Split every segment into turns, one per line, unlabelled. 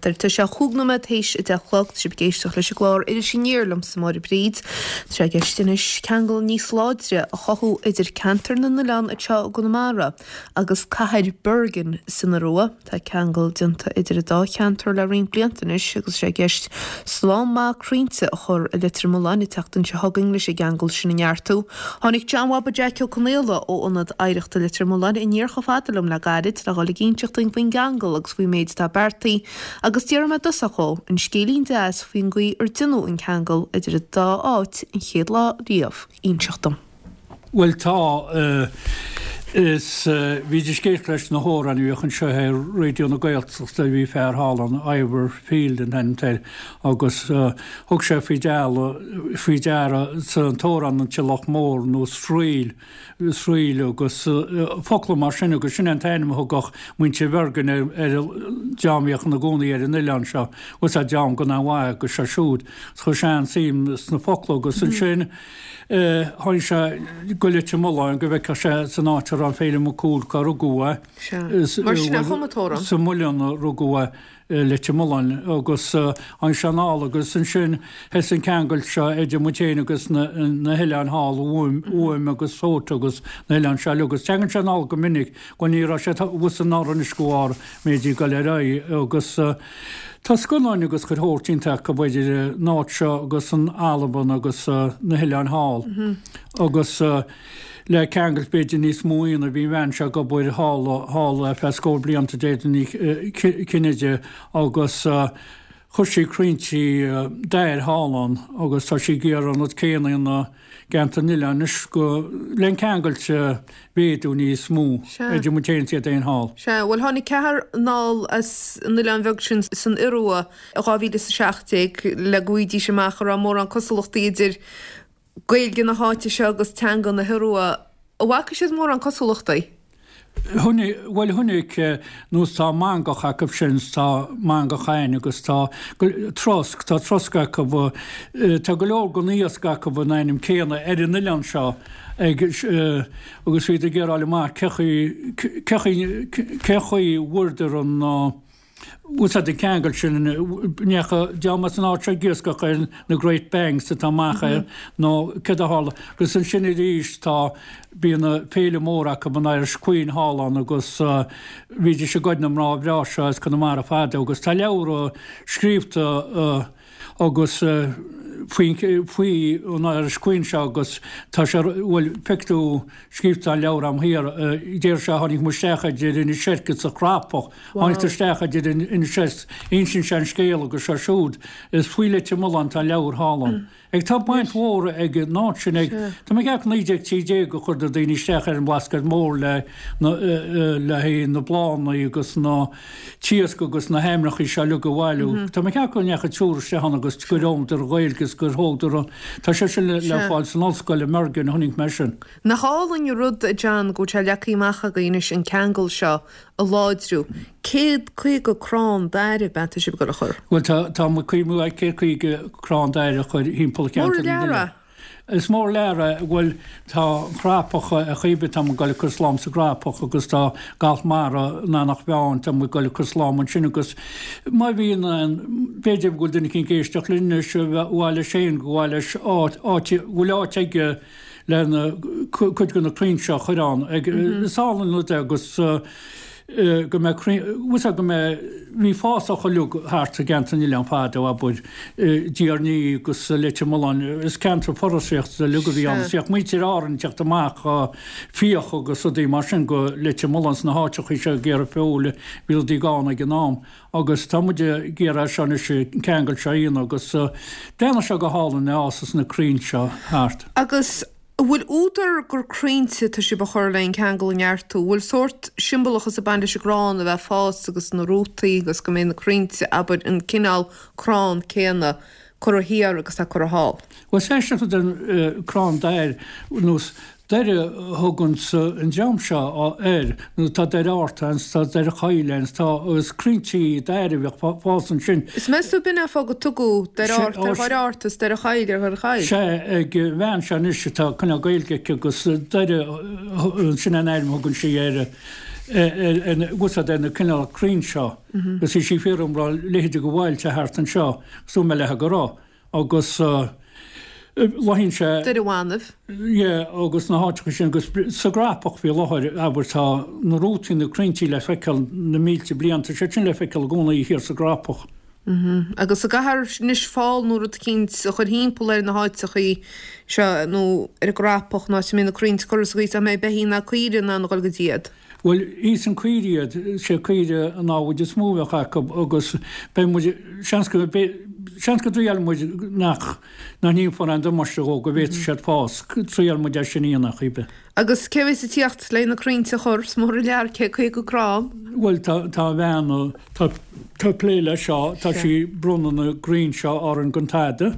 cheantair. Tá sé chúig nóiméad théis 10 a chlog. Tá sibh ag éisteacht leis an gclár Iris Aniar liomsa Máire Bríd. Tá sé i gceist anois ceangal níos láidre a chothú idir ceantar na n-oileán anseo i gConamara agus cathair Bergen san Iorua. Tá ceangal déanta idir an dá cheantar le roinnt blianta anois agus tá sé i gceist slám maith crainnte a chur i Leitir Mealláin an tseachtain seo chugainn leis an gceangal sin a neartú. Tháinig John Bhaba Jeaic Ó Conaola ó Ionad Oidhreachta Leitir Mealláin aniar chomh fada liom le gairid le dhul ag inseacht dúinn faoin gceangal agus faoin méid atá beartaithe agus d'iarr mé i dtosach dhó an scéilín deas faoin gcaoi ar deineadh an ceangal idir an dá áit an chéad lá riamh a inseacht dom.
Bhuel tá. Is bhídís ag éisteacht leis na hamhráin a bhíodh anseo ar Raidió na Gaeltachta, bhí fear thall ann, Ivor Field an t-ainm atá air, agus thug sé faoi deara, faoi deara san t-amhrán an Tulach Mór nó Sraoill, Sraoill agus focla mar sin agus sin é an t-ainm a thugadh muintir Bhergen ar an dream a bhíodh ina gcónaí ar an oileán seo, bhfuil a fhios agat dream go an-mhaith agus seo siúd. Chuir sé an-suim sna focla agus ansin, Tháinig sé go Leitir Mealláin go bhfeicfeadh sé san áit a raibh Féilim Mac Cumhaill cá rugadh
é. Sea. Mar sin a chum an t-amhrán.
Sa Muileann a rugadh é i Leitir Mealláin agus tháinig sé anall agus ansin thosaigh an ceangal seo idir muid féin agus na hoileáin thall, Uaim agus Fót agus na hoileáin seo uilig agus teagann sé anall go minic. Bhuel ní raibh sé abhus anuraidh anois de bharr méid ag dul ar aghaidh agus tá scannáin agus chuile shórt déanta acu idir an áit seo agus an Albain agus na hoileáin thall agus le ceangailt b'fhéidir níos mó a dhéanamh bhí an bhean seo ag obair thall thall ar feadh scór blianta Deirdre Ní Chinnéide agus chuir sí crainnte dair thall ann agus tá sí ag iarraidh an rud céanna a dhéanamh i gceantar na n-oileán anois go le an ceangailt a mhéadú níos mó idir muid féin is iad fhéin thall.
Sea, bhuel tháinig ceathrar anall as an oileán bheag sin san Iorua i 2017 le go bhfaighidís amach an raibh mórán cosúlachtaí idir Gaeilge na háite seo agus teanga na hIorua. An bhfaca siad mórán cosúlachtaí?
Bhuel chonaic, nós tá mangach acu sin, tá mangach againn agus tá trosc, tá trosc acu, tá go leor den iasc acu an ainm céanna ar an oileán seo ag agus bhíodar ag iarraidh a fháil amach cé chaoi, cé chaoi, cé chaoi bhfuaireadar an úsáid an ceangal sin, ndeachaigh dream as an áit seo ag iascach ar na Great Banks atá amach air nó céard a tharla. Agus ansin arís tá, bíonn féile mór acu, an Irish Queen thall ann agus bhídís ag goid na mná breá seo as Conamara fadó agus tá leabhra scríobhta agus faoi, faoi an Irish Queen seo agus tá sé, bhuel, feicfidh tú scríobhta an leabhar a'm thiar, deir sé tháinig muid isteach idir Inis Eirc is an Chrapach, tháinig tú isteach idir Inis Eirc, insíonn sé an scéal agus seo siúd, is faoi Leitir Mealláin tá an leabhar thall ann. Ag tá baint mhór ag an áit sin ag, tá mé ag ceapadh 1913 a chuir na daoine isteach ar an mBlascaod Mór le na, le haghaidh na bláthanna agus na t-iasc agus na hainmneacha seo uilig a bhailiú. Tá mé ag ceapadh go ndeachaigh triúr isteach ann agus gur fhoghlaim Gaeilge agus gur thógadar an, tá sé sin le fáil san ollscoil i mBergen a chonaic mé sin.
Nach álainn an rud, a John, go bhfuil sé leagtha amach agaibh anois an ceangal seo a láidriú. 150 crann dair ab ea atá sibh ag dul a chur?
Bhuel tá, tá muid cuimhniú ar 150 crann dair a chur thimpeall
cheantar na
Mór an lear é. Is mór lear é, bhuel tá an Chrapach ar chaoi ar bith, tá muid ag dul ag cur slám sa gCrapach agus tá Galt Mara in Eanach Mheáin, tá muid ag dul ag cur slám ansin agus má bhíonn aon, b'fhéidir go bhfuil duine eicínt ag éisteacht linn anois a mhaith leis féin, go mhaith leis áit, áit, go bhfuil áit aige le na, cuid de na crainn seo a chur ann. Ag, is álainn an rud é agus go mbeidh crainn, bhfuil 's agat go mbeidh, bhí fásach uilig thart i gceantar na n-oileán fadó, abair, Tír an Fhia agus Leitir Mealláin, is ceantar foraoiseachta uilig a bhí ann, is bhíodh muintir Árann ag teacht amach fiach agus rudaí mar sin go Leitir Mealláin sna háiteachaí seo ag iarraidh feoil, bhí rudaí gann ag an am. Agus tá muid ag iarraidh seo anois, an ceangal seo a dhéanamh agus déanfaidh sé go hálainn é fhásas na crainn seo thart.
Agus An bhfuil údar gur crainnte atá sibh a chur le an ceangal a neartú? An bhfuil sórt siombalachas ag baint leis an gcrann a bheith ag fás agus na rútaí agus go mbeidh na crainnte, abair, an cineál crann céanna curtha thiar agus atá curtha thall?
Bhuel, is aisteach an crann dair nós Doire a thuganns an dream seo air, nó tá Doire Fhearta ann, tá Doire Choill ann, tá agus crainnte dair a bhíodh ag fás ansin.
Is meas tú b'in é an fáth go tugadh Doire Fhearta ar Dhoire Fhearta is Doire Choill ar Dhoire Choill?
Sea, ag an bhean seo anois atá cineál Gaeilge aici agus Doire, sin an ainm a thugann sí air. Úsáid ar na cineál crainn seo agus bhí sí ag fiafraí an raibh a leithéide de bhailte thart anseo agus dúirt mé léithe go raibh agus bláthaíonn sé.
Doire Bhanbh.
Yeah agus na háiteacha sin agus sa gCrapach faoi láthair abair tá na rútaí na crainnte le feiceáil na mílte bliain tá siad sin le feiceáil i gcónaí thiar sa gCrapach.
Agus an gcaithfear anois fál nó rud eicínt a chur thimpeall ar na háiteachaí seo nó ar an gCrapach, an áit a mbeidh na crainnte curtha sa gcaoi is nach mbeidh beithígh ná caoirigh in ann a dhul go dtí iad.
Bhuel, íosann caoirigh iad, sé caoire an namhaid is mó a bheadh acu agus beidh muid, seans go, seans go dtriailfidh muid nach, nach ndéanfar aon damáiste dhó, go bhféadfaidh siad fás, triailfidh muid é sin a dhéanamh chaoi bith.
Agus cé a bheas ag tíocht le na crainnte a chur? Is mór an lear 50 crann.
Bhuel, tá, tá a bhean, tá, tá ag plé leis seo, tá sí ag bronnadh na gcrainn seo orainn gan tada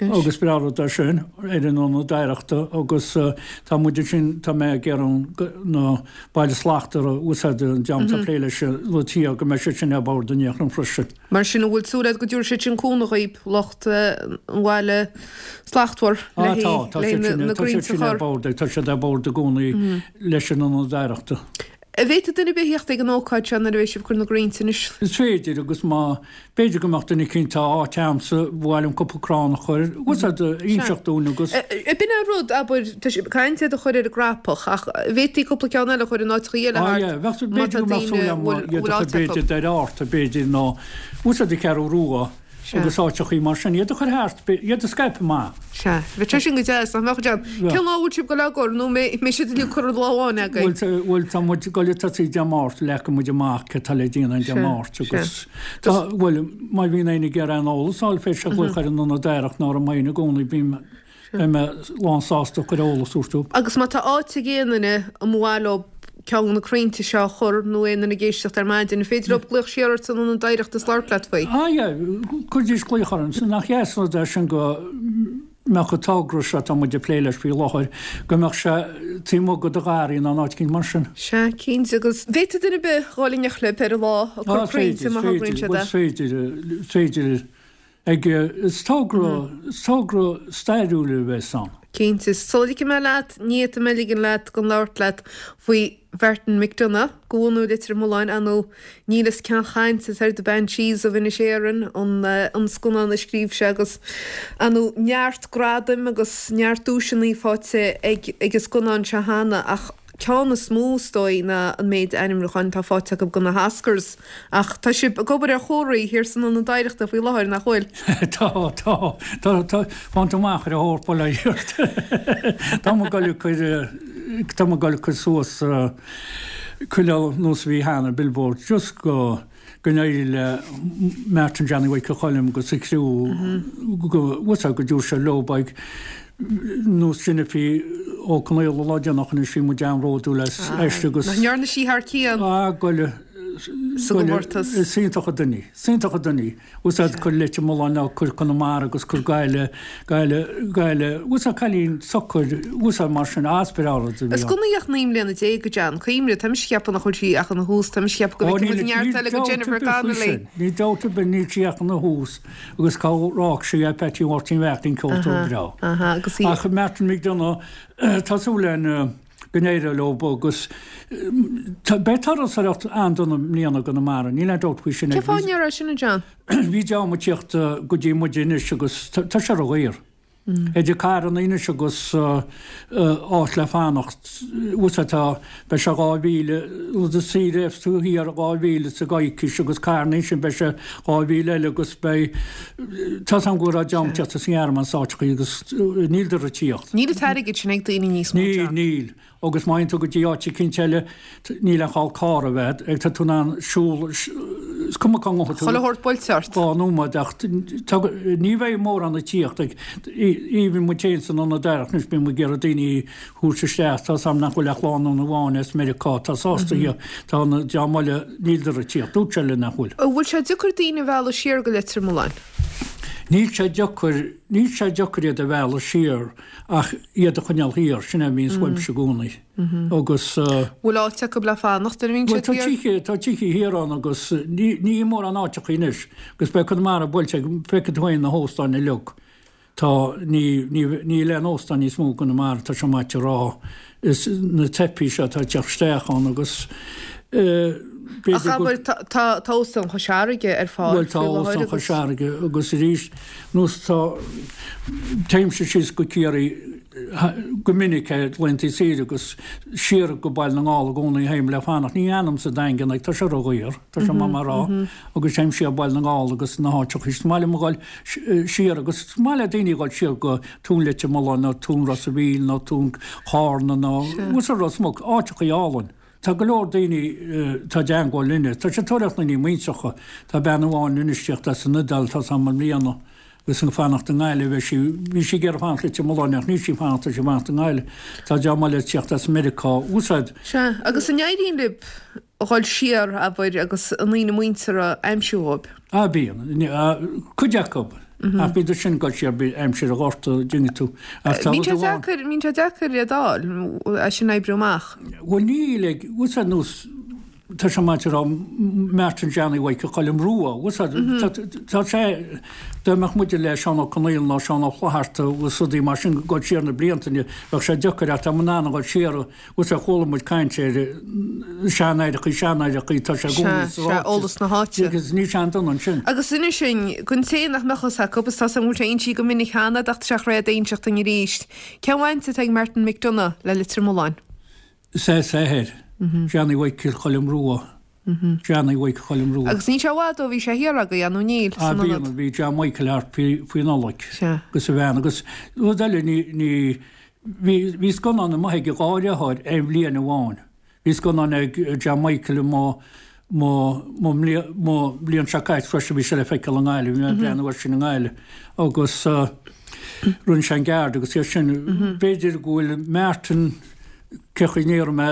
agus breá rud é sin ar an Ionad Oidhreachta agus tá muid ansin, tá mé ag iarraidh na Baile Slachtmhar a úsáid an dream atá ag plé leis an tír go mbeidh siad sin ar bord in aon chor freisin.
Mar sin, an bhfuil súil agat go dtabharfaidh siad sin cúnamh dhaoib, lucht an Bhaile Slachtmhar,
le haghaidh na gcrainnte a chur? Tá siad sin ar bord, tá siad ar bord i gcónaí leis an Ionad Oidhreachta.
An bhféadfadh duine ar bith theacht ag an ócáid seo nuair a bheidh sibh ag cur na gcrainnte anois?
Is féidir, agus má, b'fhéidir go mbeadh duine eicínt, tá áit a'msa, ba mhaith liom cúpla crann a chur, úsáid, inseacht dúinn agus.
B'in an rud, abair, tá sibh ag caint iad a chur ar an gCrapach, ach an bhféadfaí cúpla ceann eile a chur in áiteacha eile
thart? Ah yeah, bheadh, b'fhéidir go mbeadh súil a'm iad a chur b'fhéidir Doire Fhatharta, b'fhéidir, nó úsáid an Cheathrú Rua. Agus áiteachaí mar sin, iad a chur thart, iad a scaipeadh amach.
Sea. Bheadh sé sin go deas, nach mbeadh, John? Cén lá a bhfuil sibh ag dul á gcur, nó an mbeidh siad uilig curtha lá amháin
agaibh? Bhuel, tá muid ag dul ag tosaí Dé Máirt, leagfaidh muid amach céard atá le déanamh Dé Máirt agus tá, bhuel, má bhíonn éinne ag iarraidh aon eolas a fháil, féadfaidh siad glaoch ar an Ionad Oidhreachta nó orm féin i gcónaí, bím Beidh mé lán sásta cur eolas a thabhairt dóibh.
Agus má tá áit ag aon duine a mba mhaith leo ceann de na crainnte seo a chur nó aon duine ag éisteacht ar maidin, an féidir leo glaoch siar ort san Ionad Oidhreachta is labhairt leat faoi?
Ah yeah, cuiridís glaoch orm. Nach deas an rud é sin go mbeadh an togra seo atá muid ag plé leis faoi láthair, go mbeadh sé taobh amuigh de do gharraí nó in áit eicínt mar sin.
Sea, cinnte. Agus bhféadfadh duine ar bith dhul in éineacht libh ar an lá ag cur crainnte má thograíonn siad é.
Is féidir, is féidir. Ag, is togra, is togra stairiúil a bheas ann.
Cinnte. Sula ligfidh mé leat, ní fhéadfaidh mé ligean leat gan labhairt leat faoi Mhartin McDonagh, de bhunadh Leitir Mealláin, ar ndóigh níl fhios cén chaint atá ar The Banshees of Inisherin, an an scannán a scríobh sé agus, ar ndóigh, neart gradaim agus neart duaiseanna faighte ag ag an scannán seo cheana ach ceann is mó is dóigh ná an méid ainmniúcháin atá faighte acu do na hOscars. Ach tá sibh ag obair ar chomharthaí thiar san Ionad Oidhreachta faoi láthair, nach bhfuil?
Tá, tá. Tá, tá. Fánt amach ar a thóir polaireacht. Tá mé ag dul ag cur, tá mé ag dul ag cur suas chuile nós a bhí cheana, billboard, just go, go n-éirí le Martin Johnny Mhichael Choilm agus a chriú go, bhfuil go dtabharfaidh sé leo beidh nós Jennifer Ó Conaola lá déanach anois bhí muid an-bhródúil aisti agus.
Nach ndearna sí thar cionn?
Ah, goile.
Sa gcomórtas.
Is iontach an duine í. Is iontach an duine í. Úsáid cur Leitir Mealláin ná cur Conamara agus cur Gaillimh, Gaillimh, Gaillimh. Úsáid cailín socair, úsáid mar sin, as breá rud
a bhí Is gan í ach 19 mbliana, a John. Cuimhnigh, tá mise ag ceapadh nach bhfuil sí ach ina thús, tá mise ag ceapadh go bhfeicfidh muid neart eile de Jennifer Connelly.
Níl dabht ar bith, níl sí ach ina thús agus cá raibh sí é Peaití Mháirtín Bheachtaín ceoltóir breá. Ach Martin McDonagh, tá súil againn go n-éireoidh leo agus beidh turasóireacht an-dona i mbliana i gConamara, níl aon dabht faoi sin.
Cén fáth a ndéarfá sin, a John?
Bhí dream ag tíocht go dtí muid anois agus tá sé ródhaor. Idir carranna anois agus áit le fanacht, bhfuil tá, beidh sé 2,000, rud is saoire tú thiar 2,000 sa gcoicís agus carranna ansin beidh sé 2,000 eile agus beidh, tá 's agam go raibh dream ag tíocht as an nGearmáin is áiteachaí agus níl ag tíocht.
Níl an t-airgead sin ag daoine níos mó,
John. Níl, níl. Agus má théann tú go dtí áit eicínt eile, níl aon chall carr a bheith ag, tá tú in ann siúl, is cuma cá ngabhfaidh tú.
Chuile shórt buailte ort.
Dhá nóiméad ach tá, ní bheidh mórán ag tíocht ag, even muid féin san Ionad Oidhreachta anois, bíonn muid ag iarraidh daoine a thabhairt isteach, tá 's agam nach bhfuil ach lánúin amháin as Meiriceá atá sásta a thíocht, tá an dream eile, níl ag tíocht, dúirt sé linn nach bhfuil.
An bhfuil sé deacair daoine a mhealladh siar go Leitir Mealláin?
Níl sé deacair, níl sé deacair iad a mhealladh siar. Ach iad a choinneáil thiar, sin é a bhíonns uaimse i gcónaí. Agus.
Bhfuil áit acu le fanacht nuair a bhíonn siad
thiar? Bhuel, tá tithe thiar ann agus ní mórán áiteacha anois agus beidh Conamara buailte ag, feicfidh tú féin na hóstáin uilig. Tá, ní, ní, níl aon óstán níos mó i gConamara, tá sé maith a rá. Is na teipí seo atá ag teacht isteach ann agus
eh, b'fhéidir Ach abair, tá, tá, tá Óstán Chois Fharraige ar fáil
Bhuel, tá faoi láthair Óstán Chois Fharraige agus arís, nós tá, téimse síos go Ciarraí go minic ar laethanta saoire agus siar go Baile na nGall i gcónaí a théim le fanacht. Ní fhanaim sa Daingean, tá sé ródhaor, tá sé maith mar rá, agus téim siar Baile na nGall agus na háiteacha. Is maith liom a dhul siar agus is maith le daoine a dhul siar go Tóin Leitir Mealláin nó Tóin Ros a' Mhíl nó Tóin Chárna nó Ros Muc, áiteacha álainn. Tá go leor daoine atá i dteangmháil linne. Tá siad ag tóraíocht daoine muintreacha. Tá bean amháin anois ag tíocht as an Iodáil, tá 's agam i mbliana, agus ag fanacht i nGaillimh. Bheidh sí, bhí sí ag iarraidh fanacht Leitir Mealláin ach níl sí ag fanacht, tá sí ag fanacht i nGaillimh. Tá dream eile ag tíocht as Meiriceá. Úsáid.
Sea, agus an éiríonn libh a dhul siar, abair, agus a ndaoine muinteartha a aimsiú dhóibh?
Ah, bíonn. Cuid acu. Ach bíodh sin ag dul siar aimsir an Ghorta, an dtuigeann tú.
Ach tá rud amháin. Bíonn sé deacair iad a fháil, é sin a oibriú amach.
Bhuel níl ag, bhfuil sé nós, tá sé maith a rá, Martin Johnny Mhichael Choilm Rua, bhfuil sé, tá sé, dá mbeadh muide le Seán Ó Conaola nó Seán Ó Flatharta agus rudaí mar sin ag dul siar na blianta, bheadh sé deacair ach tá muid in ann a dhul siar Bhuel sea, chuala muid caint ar seanaithreachaí, seanaithreachaí, tá sé i gcónaí
sa ráiteas. Sea, eolas na háite.
Agus níl sé an-dona ansin.
Agus inis dúinn, don té nach mbeadh fhios acu, is tá 's agam go bhfuil sé insithe go minic cheana, ach tá sé réidh d'inseacht dúinn arís, cén bhaint atá ag Martin McDonagh le Leitir Mealláin?
Is é is athair, Johnny Mhichael Choilm Rua. Johnny Mhichael Choilm Rua.
Agus níl sé i bhfad ó bhí sé thiar agaibh, nó níl,
san ionad? Bhí, bhí John Michael thart faoi Nollaig.
Sea.
Agus a bhean. Agus rud eile, ní, ní, bhí, bhí scannán amuigh ag a dhá dheartháir aon bhliain amháin. Bhí scannán ag John Michael i mo, mo, mo mbliain, mo bhliain seo caite freisin, bhí sé le feiceáil i nGaillimh, bhí mé ag breathnú air sin i nGaillimh. Agus rinne sé an Guard agus iad sin. B'fhéidir go bhfuil Martin, Cé chaoi ndéarfaidh mé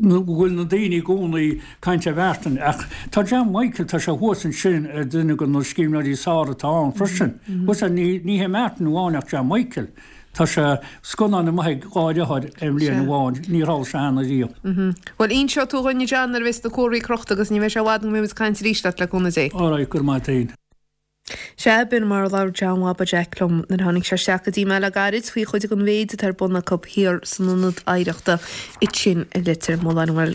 go bhfuil na daoine i gcónaí ag caint ar Mhartin ach tá John Michael, tá sé thuas ansin ar duine de na scríbhneoirí is fearr atá ann freisin. Bhuel, ní hé Martin amháin ach John Michael. Tá sé scannán amuigh ag dhá dheartháir aon bhliain amháin, níor tharla sé cheana
riamh. Bhuel, inseoidh tú dhuinn a John nuair a bheas na comharthaí crochta agus ní bheidh sé i bhfad go mbeidh muid ag caint arís leat le cúnamh Dé.
Alright, go raibh maith a't fhéin.
Sea, b'in mar a labhair John Bhaba Jeaic liom nuair a tháinig sé isteach go dtí mé le gairid faoi chuid den mhéid atá ar bun acu thiar san Ionad Oidhreachta ansin i Leitir Mealláin. Bhuel.